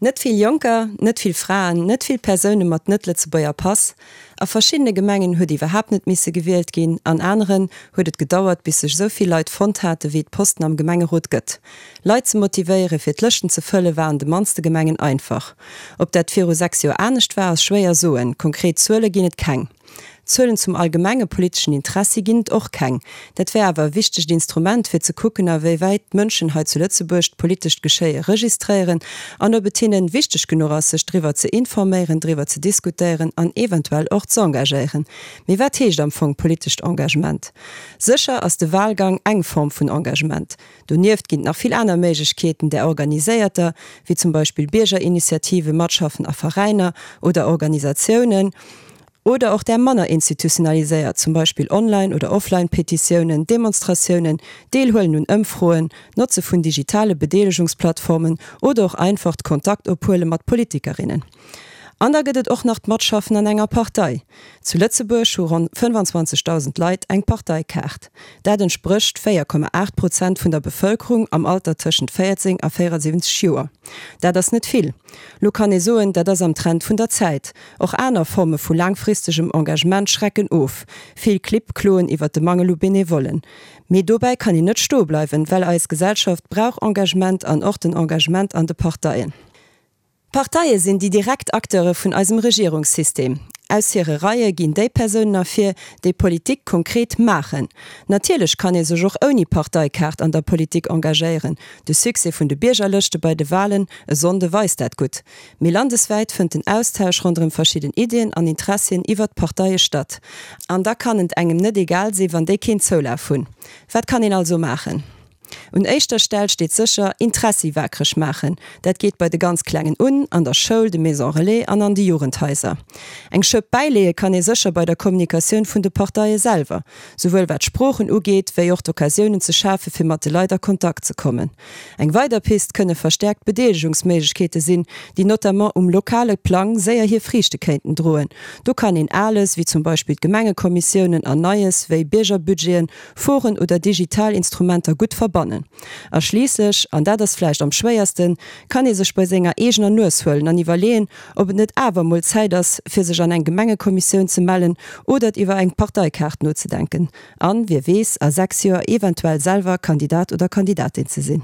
Net vill Jonker, net vill Fraen, net vill Persoune mat net-Lëtzebuerger Pass. A verschiddene Gemengen huet iwwerhaapt net misse gewielt ginn, an aneren huet et gedauert, bis sech esou vill Leit fonnt hate wéi et Posten am Gemengerot gëtt. Leit ze motivéiere fir d'Lëschten ze fëlle war an de mannste Gemengen einfach. Ob dat viru 6 Joer anescht war, ass schwéier soen, konkret Zuele ginn et keng. Zuelen zum allgemenge politeschen Interessi ginn et och keng. Dat wär awer e wichtegt Instrument, fir ze kucken, a wéi wäit d'Mënschen hei zu Lëtzebuerg d'politescht Geschéie registréieren an ob et hinnen wichteg genuch ass, sech driwwer ze informéieren, driwwer ze diskutéieren an eventuell och z'engagéieren. Mee wat heescht am Fong politescht Engagement? Sécher ass de Wahlgang eng Form vun Engagement. Donieft ginn et nach vill aner Méiglechkeeten, där organiséierter, wéi zum Beispill Biergerinitiativen, Matschaffen a Veräiner oder Organisatiounen, oder och där manner institutionaliséiert, zum Beispill Online oder Offline-Petitiounen, Demonstratiounen, Deelhuelen un Ëmfroen, d'Notze vun digitale Bedeelegungsplattformen oder och einfacht Kontakt-ophuele mat Politikerinnen. An da gëtt et och nach d'Matschaffen an enger Partei. Zu Lëtzebuerg hu ronn 25.000 Leit eng Parteikaart. Dat entsprécht 4,8 Prozent vun der Bevëlkerung am Alter tëschent 14 a 74 Joer. Dat ass net vill. Lo kann ee soen, dat ass am Trend vun der Zäit. Och aner Forme vu laangfristegem Engagement schrecken of. Vill Clibb kloen iwwer de Mangel u Benevollen. Mee dobäi kann een net stoe bleiwen, well eis Gesellschaft brauch Engagement an och den Engagement an de Parteien. D'Parteie sinn déi direkt Acteure vun eisem Regierungssystem. Aus hire Reie ginn déi Persounen ervir, déi Politik konkret maachen. Natierlech kann ee sech och ouni Parteikaart an der Politik engagéieren, de Succès vun de Biergerlëschte bei de Walen e Sonnde weist dat gutt. Mee landeswäit fënnt den Austausch ronderëm verschidden Iddien an Interessien iwwert d'Parteie statt. An da kann et engem net egal sinn, wann déi keen Zoulaf hunn. Wat kann een also maachen? Un éischter Stell steet sécher, Interessi waakreg maachen. Dat geet bei de ganz Klengen un, an der Schoul, de Maisons Relais an an de Jugendhaiser. Eng Schëpp bäileeë kann ee sécher bei der Kommunikatioun vun de Parteie selwer, souwuel wat d'Sproochen ugeet, wéi och d'Occasiounen ze schafe fir mat de Leit a Kontakt ze kommen. Eng weider Pist kënne verstäerkt Bedeelegungsméiglechkeete sinn, déi notamment um lokale Plang séier hir Friichte kéinten droen. Do kann een Ales, wéi zum Beispill d'Gemengekommissiounen, an Neies, wéi Biergerbudgeten, Foren oder digital Instrumenter gutt verbannen. A schliisslech, an dat ass vläicht am schwéiersten, kann ee sech bei senger eegener Nues huelen an iwwerleeën, ob et net awer emol Zäit ass, fir sech an eng Gemengekommissioun ze mellen oder iwwer eng Parteikaart nozedenken an, wie weess, a 6 Joer eventuell selwer Kandidat oder Kandidatin ze sinn.